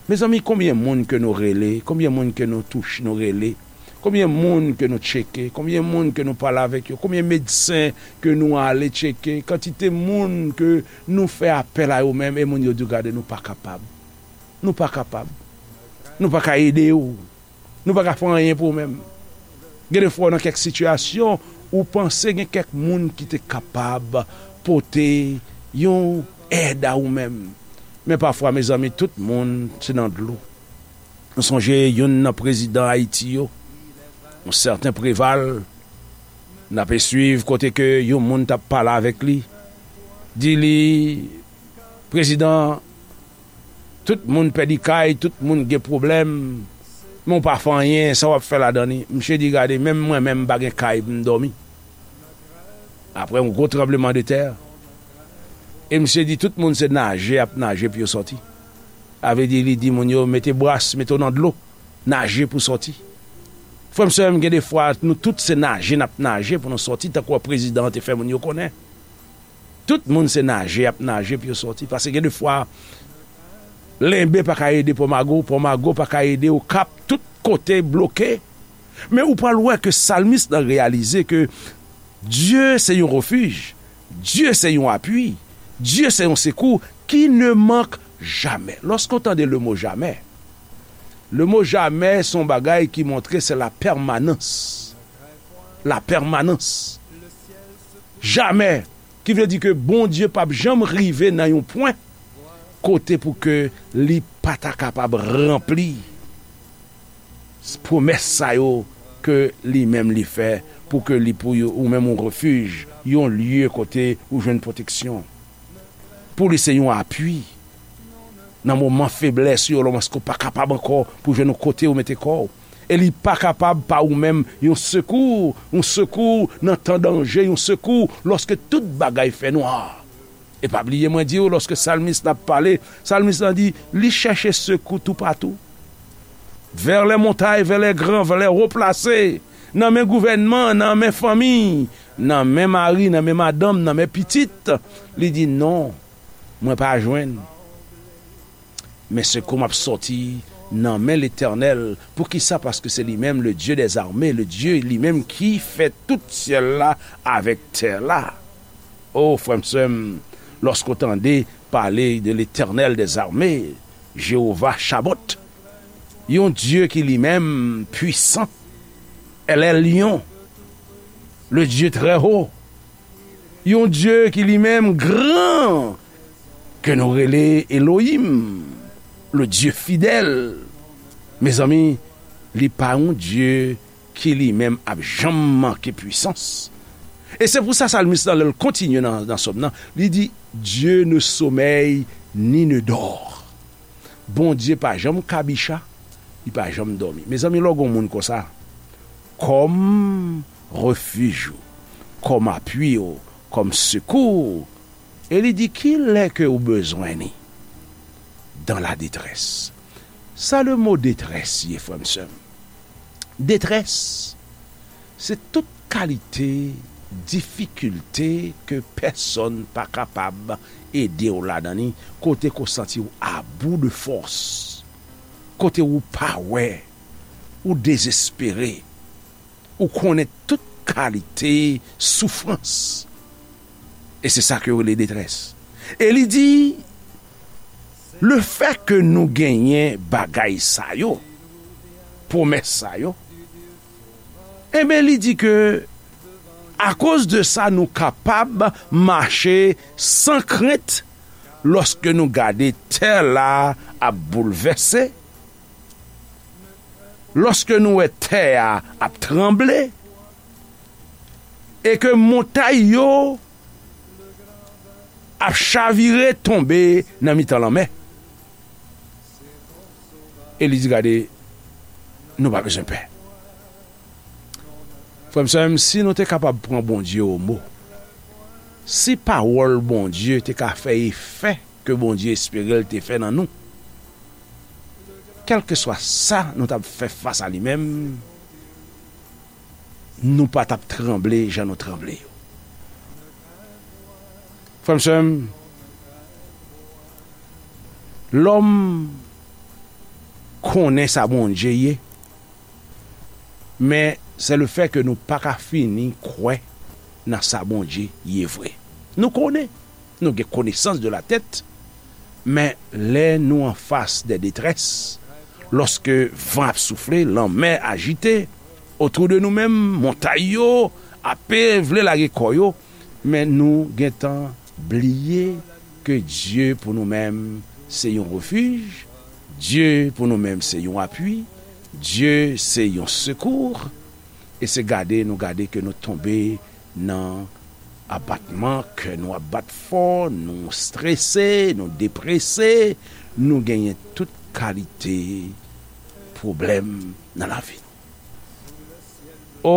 Mezanmi, konbyen moun ke nou rele, konbyen moun ke nou touche, nou rele, konbyen moun ke nou tcheke, konbyen moun ke nou pale avèk yo, konbyen medsen ke nou ale tcheke, kantite moun ke nou fè apèl a yo menm, e moun yo di w, gade, nou pa kapab. Nou pa kapab. Nou pa ka ede w. Nou pa ka fè anyen pou ou menm. Gen de fwa w nan kèk sitiyasyon, ou panse gen kèk moun ki te kapab pote yon èd a ou menm. Men pafwa, mezanmi, tout moun se nan dlo. Nou sonje youn nan prezidan Ayiti yo, yon sèten Preval, n ape swiv kote ke yon moun t ap pale avèk li, di li, prezidan, tout moun pèdi kay, tout moun gen pwoblèm, men w pa fè anyen, sa w ap fè ladan li? Misye di, gade, menm mwen menm m pa gen kay pou m dòmi. Apre yon gwo tranbleman de tè, e misye di, tout moun se naje y ap naje pou yo sòti. Sa vle di, li di moun yo, mete bras, mete w nan dlo, naje pou sòti. Frè m, sè m, gen de fwa, nou tout se naje n ap naje pou nou sòti, tankou prezidan an te fè moun yo konnen. Tout moun se naje y ap naje pou yo sòti. Paske gen de fwa, Lenbe pa ka ede Pòmago, Pòmago pa ka ede Okap, tout kote bloke. Men ou pral wè ke salmis lan reyalize ke Dye se yon refij, Dye se yon apui, Dye se yon sekou ki ne mank jamè. Lòske w tande le mo jamè, le mo jamè se yon bagay ki montre se la pèmanans. La pèmanans. Jamè. Ki vle di ke Bondye p ap janm rive nan yon pwen kote pou ke li pa ta kapab ranpli pwomès sa yo ke li menm li fè pou ke li pou yo, ou menm yon refij, yon lye kote ou jwenn pwoteksyon. Pou li se yon apui. Nan moman feblès yo, lòske w pa kapab ankò pou jwenn yon kote ou mete kò w. E li pa kapab pa ou menm yon sekou, yon sekou nan tan danje, yon sekou lòske tout bagay fè nwa. E pa bliye mwen di w, lòske salmis la ap pale, salmis lan di, li chèche sekou toupatou. Vers les montagnes, vers les grands, vers les hauts placés, nan men gouvènman, nan men fanmi, nan men mari, nan men madanm, nan men pitit. Li di, "Non, mwen pa jwenn. Men sekou m ap sòti nan men Letènèl." Poukisa? Paske se li menm, le Dieu des armées, le Dieu li menm ki fè tout syèl la avèk tè la. O, frè m, sè m, lòske w tande pale de Letènèl des armées, Jewova Chabòt, yon Dye ki li menm pwisan, El Elyon, le Dieu très haut, yon Dye ki li menm gran, ke nou rele Elohim, le Dieu fidèle. Mezanmi, li pa yon Dye ki li menm ap janm manke pwisans. E se pou sa salmis lan, lè l kontinye nan, nan sòm nan, li di, "Dieu ne sommeille ni ne dort." Bondye pa janm kabicha, li pa janm dòmi. Mezanmi, lè w gen yon moun konsa, kòm refij ou, kòm apui ou, kòm sekou ou, e li di, "Kilè ke ou bezwen ni?" Dans la détresse. Sa le mo detrès ye, frè m, sè m. Detrès, se tout kalite difikilte ke pèsonn pa kapab ede w ladan li, kote ke w santi w a bout de fòs, kote ou pa wè, ou dezespere, ou konnen tout kalite soufrans. E se sa ke yo rele detrès. E li di, lefètke nou genyen bagay sa yo, pwomès sa yo, enben, li di ke akoz de sa, nou kapab mache san krent lòske nou gade tè la ap boulvèse, lòske nou wè tè a ap tranble, e ke montay yo ap chavire tonbe nan mitan lanmè. E li di, gade, nou pa bezwen pè. Frè m, sè m, si nou te kapab pran Bondye o mo, si pawòl Bondye te ka fè efè ke Bondye espere l te fè nan nou, kèlkeswa sa nou t ap fè fas a li menm, nou pa t ap tranble jan nou tranble yo. Frè m, sè m, lòm konnen sa Bondye ye, men se lefètke nou pa ka fini kwè nan sa Bondye ye vre. Nou konnen, nou gen konesans de la tèt, men lè nou anfas de detrès, lòske van ap soufle, lanmè ajite, otou de nou menm, montay yo ape vle lage kò yo, men nou gentan bliye ke Dye pou nou menm se yon refij, Dye pou nou menm se yon apui, Dye se yon sekou, e se gade nou gade ke nou tonbe nan abatman, kè nou ap bat fò, nou strese, nou deprese, nou genyen tout kalite pwoblèm nan lavi nou. O,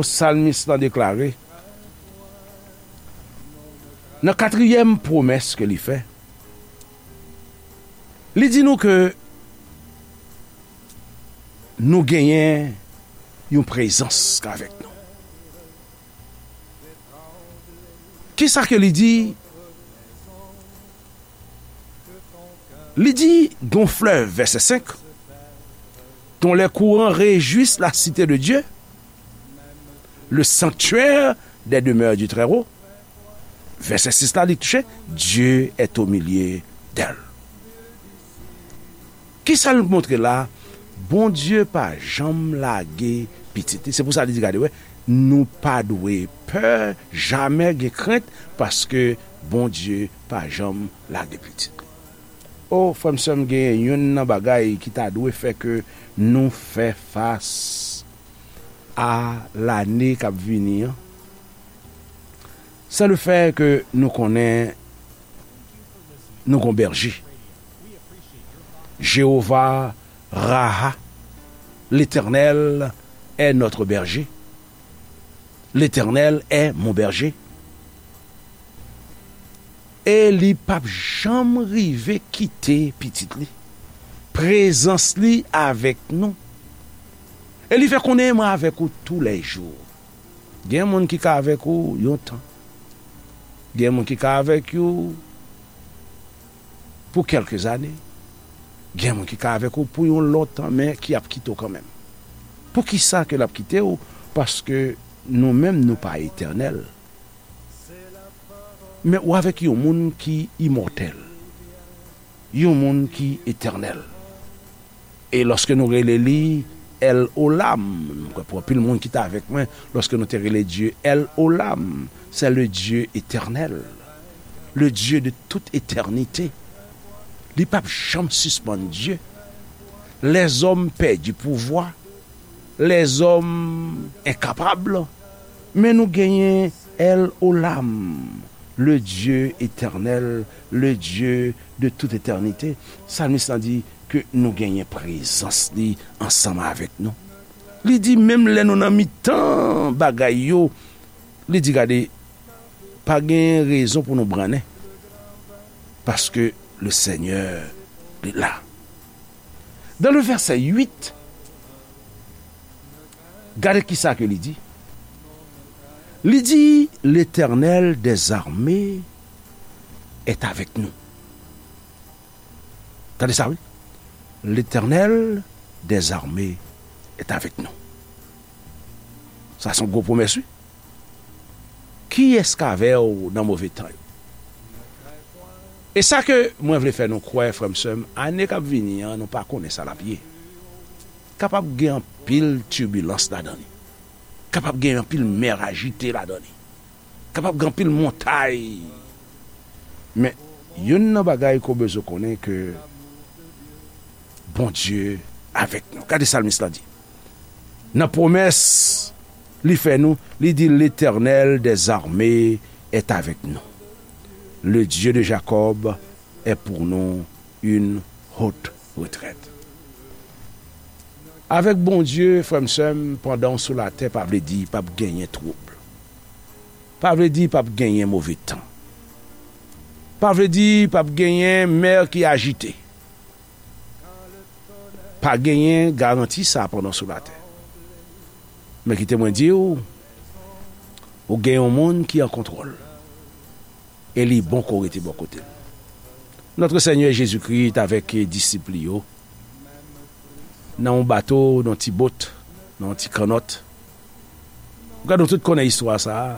salmis lan deklare, nan katriyèm pwomès ke li fè, li di nou ke nou genyen yon prezans k avèk nou. Kisa ke li di? Li di, gon flèv, vèsè senk, dont les courants réjouissent la cité de Dieu, le sanctuaire des demeures du Très-Haut. Vèsè sis la, li touche, Dieu est au milieu d'elle. Kisa l montre la? Bondye pa janm lage pitit li. Se pou sa li di, gade, wè, nou pa dwe pè, jamè gen krent, paske Bondye pa janm lage pitit li. O, frè m, sè m, genyen youn nan bagay ki ta dwe fè ke nou fè fas a lane k ap vini an, se lefètke nou konnen nou gon bèje. Jewova Raha, Letènèl est notre berger. L'Éternel est mon berger. E li p ap janm rive kite pitit li. Prezans li avèk nou. E li fè konnen, mwen avèk ou toulèjou. Gen moun ki ka avèk ou yon tan. Gen moun ki ka avèk ou pou kèlke zane. Gen moun ki ka avèk ou pou yon lontan, men ki ap kite w kanmenm. Poukisa ke l ap kite w? Paske nou menm, nou pa etènèl. Men ou avèk yon moun ki imòtèl, yon moun ki etènèl. E lòske nou rele li El Olam, m kwè pou anpil moun ki t avèk mwen, lòske nou te rele Dye El Olam, c'est le Dieu éternel, le Dieu de toute éternité. Li p ap janm sispann Dye. Lèzòm pèdi pouvwa, lèzòm enkapab, men nou genyen El Olam, le Dieu éternel, le Dieu de toute éternité. Salmis lan di ke nou genyen prezans li ansanm avèk nou. Li di, menm lè nou nan mitan bagay yo, li di, gade, pa gen rezon pou nou brannen, paske le Seigneur li la. Dans le verset huit, gade kisa ke li di. Li di, l'Éternel des armées est avec nous. Tande sa, wi. L'Éternel des armées est avec nous. Sa se yon gwo pwomès, wi. Kiyès k avè w nan move tan yo? E sa ke mwen vle fè nou kwè, frè m, sè m, ane k ap vini an, nou pa konnen sa l ap ye. Kapab gen anpil tibilans ladan li. Kapab gen anpil mè ajite ladan li. Kapab gen anpil montay. Men, youn nan bagay ke w bezwen konnen ke Bondye avèk nou. Gade salmis la di. Nan pwomès li fè nou, li di, l'Éternel des armées est avec nous. Le Dieu de Jacob est pour nous une haute retraite. Avèk Bondye, frè m, sè m, pandan w sou latè, pa vle di p ap genyen twoub. Pa vle di p ap genyen move tan. Pa vle di p ap genyen mè ki ajite. Pa genyen garanti sa pandan w sou latè. Men kite mwen di w, ou gen yon moun ki an kontwòl. E li bon ke w rete bò kote l. Notre Seigneur Jésus-Christ avèk disip li yo, nan yon bato, nan yon ti bot, nan yon ti kannòt. Gade, nou tout konnen istwa sa a.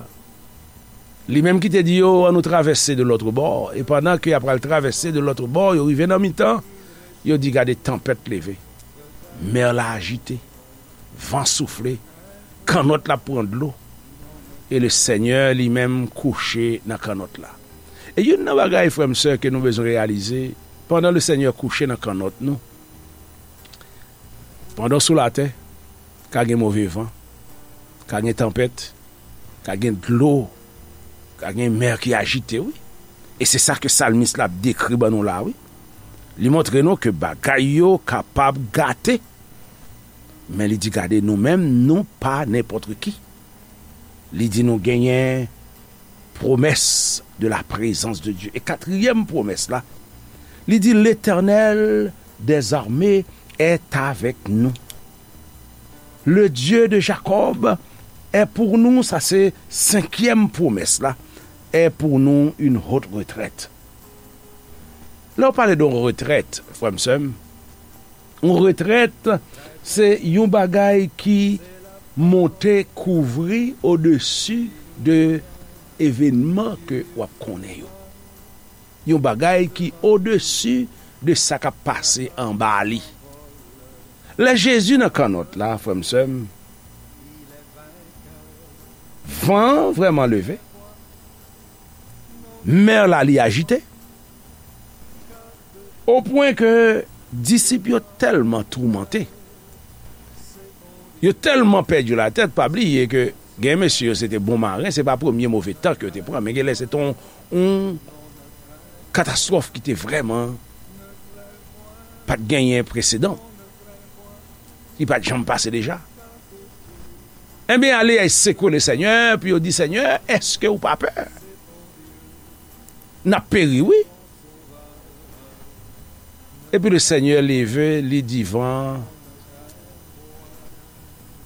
Li menm ki te di yo, annou travèse de lòt bò. E pandan ke y ap pral travèse de lòt bò, yo rive nan mitan, yo di, gade, tanpèt leve. Mè la ajite. Van soufle. Kannòt la pran dlo. E le Seigneur li menm kouche nan kannòt la. E youn nan bagay, frè m, sè, ke nou bezwen reyalize, pandan le Seigneur kouche nan kannòt nou, pandan w sou latè, ka gen move van, ka gen tanpèt, ka gen dlo, ka gen mè ki ajite, wi. E se sa ke salmis la ap dekri ban nou la, wi. Li montre nou ke bagay yo kapab gate. Men li di, gade, nou menm, nou pa nenpòt ki. Li di nou genyen promès de la présence de Dieu. E katriyèm pwomès la, li di, l'Éternel des armées est avec nous. Le Dieu de Jacob est pour nous, sa se senkyèm pwomès la, est pour nous une haute retraite. Lè w pale de yon retrèt, frè m, sè m, yon retrèt, se yon bagay ki monte kouvri odesi de evènman ke w ap konnen yo. Yon bagay ki odesi de sa k ap pase anba li. Lè Jezi nan kannòt la, frè m, sè m, van an vrèman leve, mè la li ajite, o pwen ke disip yo tèlman toumante, yo tèlman pèdi latèt, pa bliye ke gen mesye yo se te bon maren, se pa premye move tan ke yo te pran, men genlè se te yon, yon katastwòf ki te vrèman pa t genyen presedan. Li pa t janm pase deja. Ebyen, ale, y al sekwe le Senyè, epi yo di, Senyè, èske ou pa pè? N ap peri, wi. Epi le Senyè leve, li di van,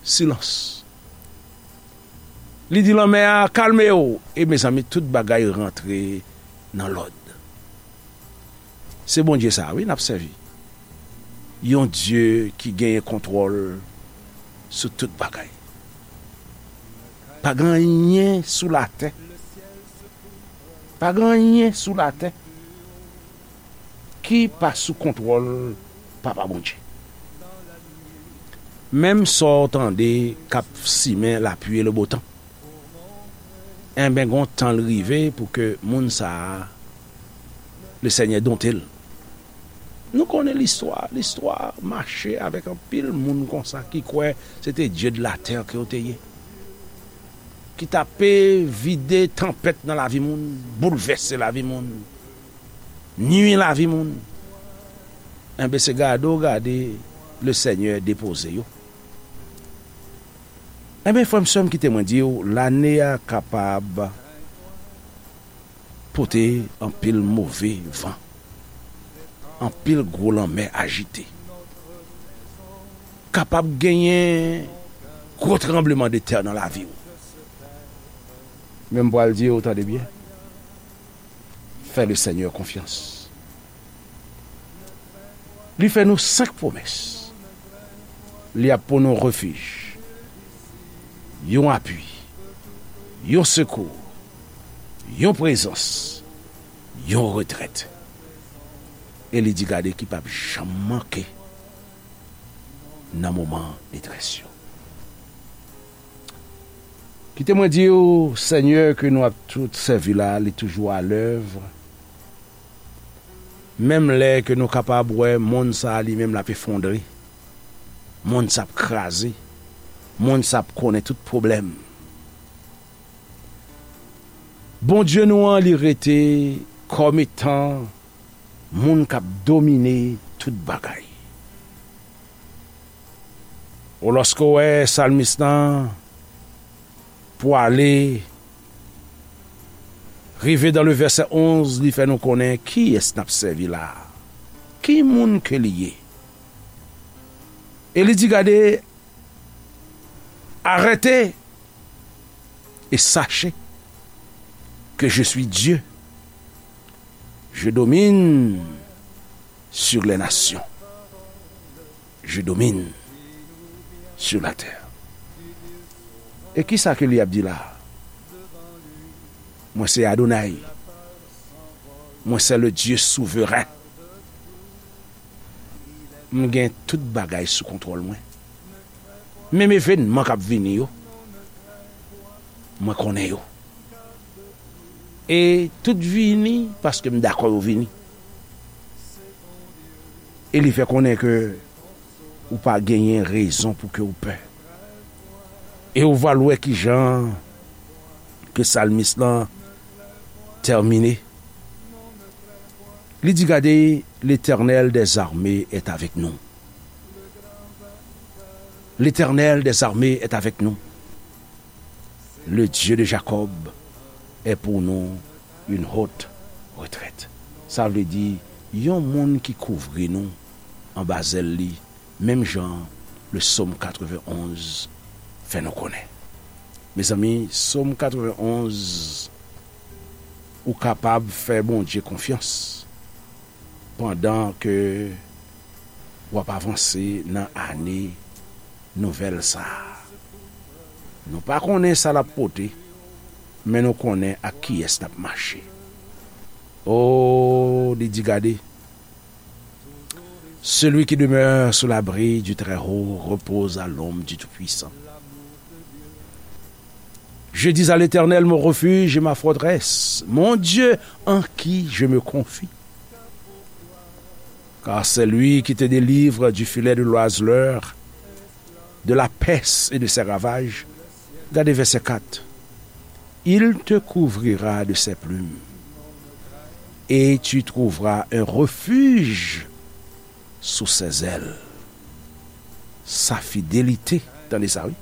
silans. Li di lanmè a, "Kalme w." E mezanmi, tout bagay rantre nan lòd. Se Bondye sa a, wi, n ap sèvi. Yon Dye ki genyen kontwòl sou tout bagay. Pa gen anyen sou latè. Pa gen anyen sou latè ki pa sou kontwòl Papa Bondye. Menm sa w tande k ap simen lapli e lebotan, enben, gon tan l rive pou ke moun sa a, Lesenyè donte l. Nou konnen listwa. Listwa mache avèk anpil moun konsa ki kwè se te dye de latè ke yo te ye, ki t ape vide tanpèt nan lavi moun, boulvèse lavi moun, nui lavi moun. Enben, se gade w gade Lesenyè depoze yo. Enben, frè m, sè m, kite mwen di w, lane a kapab pote anpil move van, anpil gwo lanmè ajite. Kapab genyen gwo tranbleman de tè nan lavi w. Men m pral di w, tande byen, fè Lesenyè konfyans. Li fè nou senk pwomès. Li ap pou nou refij, yon apui, yon sekou, yon prezans, yon retrèt. E li di, gade, ki p ap janm manke nan moman detrès yo. Kite mwen di w, Senyè ke nou ap tout sèvi la, li toujou alèv. Menm lè ke nou kapab wè monn sa a li menm l ap efondre, monn sa ap kraze, monn sa ap konnen tout pwoblèm. Bondye nou an, li rete kòm etan moun k ap domine tout bagay. O, lòske w wè salmis lan pwale, rive dan le vèsè onz, li fè nou konnen kiyès n ap sèvi la a, ki moun ke li ye. E li di, gade, arrêtez et sachez que je suis Dieu. Je domine sur les nations. Je domine sur la terre. E kisa ke li ap di la? Mwen se Adonay. Mwen se le Dieu souverain. M gen tout bagay sou kontwòl mwen. Menm evènman k ap vini yo, mwen konnen yo. E tout vini paske m dakò yo vini. E li fè konnen ke ou pa genyen rezon pou ke ou pè. E ou va l wè kijan ke salmis lan tèmine. Li di, gade, Letènèl dèzame èt avèk nou. Letènèl dèzame èt avèk nou. Le Dieu de Jacob est pour nous une haute retraite. Sa vle di, yon moun ki kouvri nou anba zèl li, menm jan le Sòm katrevenn onz fè nou konnen. Mezanmi, Sòm katrevenn onz, ou kapab fè Bondye konfyans pandan ke w ap avanse nan ane nouvèl sa a. Nou pa konnen sa l ap pote, men nou konnen ak kiyès n ap mache. O, li di, gade, celui qui demeure sous l'abri du Très-Haut repose à l'ombre du Tout-Puissant. Je dis à l'Éternel, mon refuge et ma forteresse, mon Dieu en qui je me confie. Car c'est lui qui te délivre du filet de l'oiseleur, de la peste et de ses ravages. Gade vèsè kat. Il te couvrira de ses plumes, et tu trouveras un refuge sous ses ailes. Sa fidelite, tande sa wi,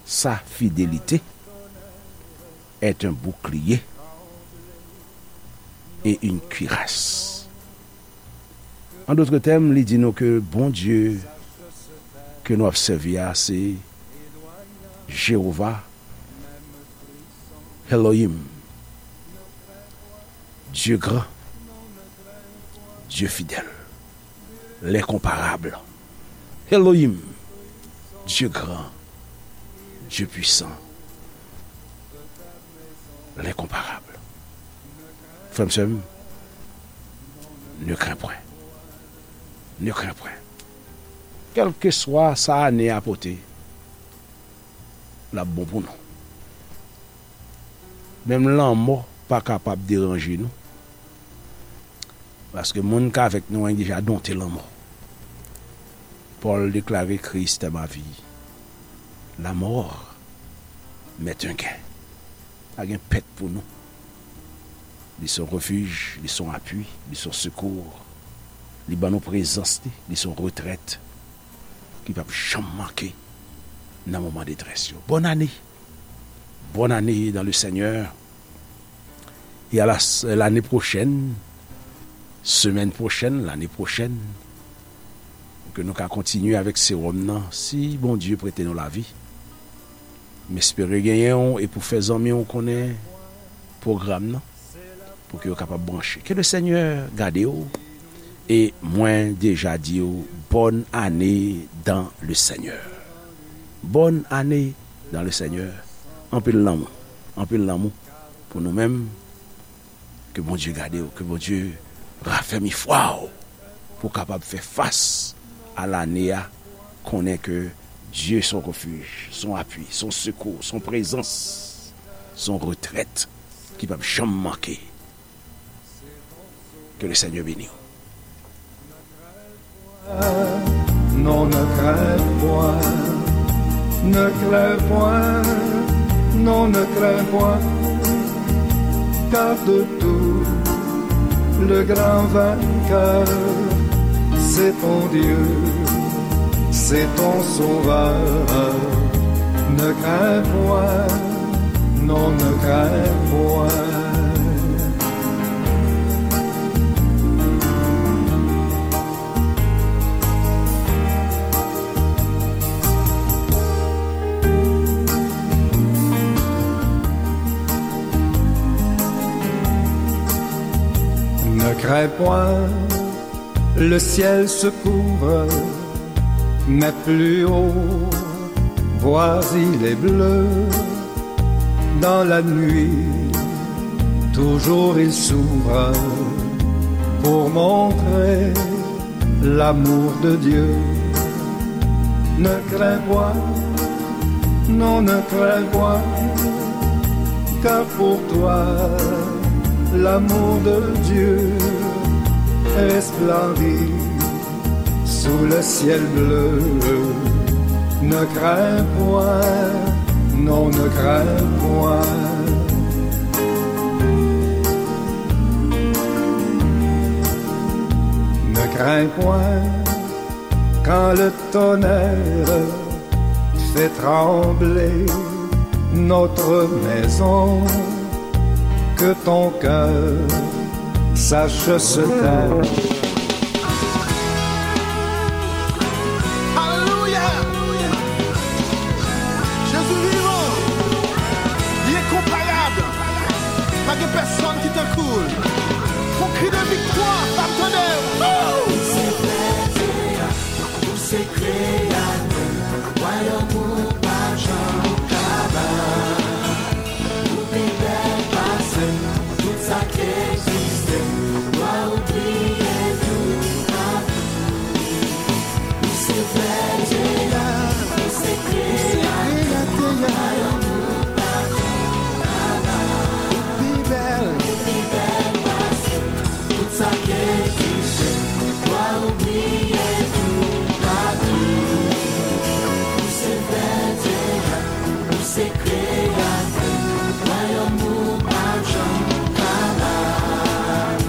sa fidelite est un bouclier et une cuirasse. An dòt tèm, li di nou ke Bondye ke nou ap sèvi a, se Jewova, Elohim, Dieu grand, Dieu fidèle, l'incomparable. Elohim, Dieu grand, Dieu puissant, l'incomparable. Frè m, sè m, ne crains point. Ne crains point. Kèlkeswa sa ane a pote, l ap bon pou nou. Menm lanmò pa kapab deranje nou. Paske moun k avèk nou an deja donte lanmò. Pòl deklare, Christ est ma vie. La mort m'est un gain. Pa gen pèt pou nou. Li se yon refij, li se yon apui, li se yon sekou. Li ban nou prezans li, li se yon retrèt ki p ap janm manke nan moman detrès yo. Bòn ane! Bòn ane dans le Seigneur! E a la, lane pwochèn, semèn pwochèn, lane pwochèn, ke nou ka kontinye avèk sewòm nan, si Bondye prete nou lavi. M espere genyen w e pou fè zanmi w konnen pwogram nan, pou ke yo kapab branche. Ke le Senyè gade w, e mwen deja di w, bòn ane dans le Senyè. Bòn ane dans le Senyè. Anpil lanmou, anpil lanmou pou nou menm. Ke Bondye gade w, ke Bondye rafèmi fwa w pou w kapab fè fas a lane a, konnen ke Dye se yon refij, se yon apui, se yon sekou, se yon prezans, se yon retrèt ki p ap janm manke. Ke le Senyè beni w. Non, ne crains point, ne crains point, non, ne crains point, car de tout le grand vainqueur, c'est ton Dieu, c'est ton sauveur. Ne crains point, non, ne crains point. Ne crains point, le ciel se couvre, mais plus haut, vois, il est bleu. Dans la nuit, toujours il s'ouvre pour montrer l'amour de Dieu. Ne crains point, non, ne crains point, car pour toi, l'amour de Dieu resplendit sous le ciel bleu. Ne crains point, non, ne crains point. Ne crains point quand le tonnerre fait trembler notre maison, que ton cœur sache se taire.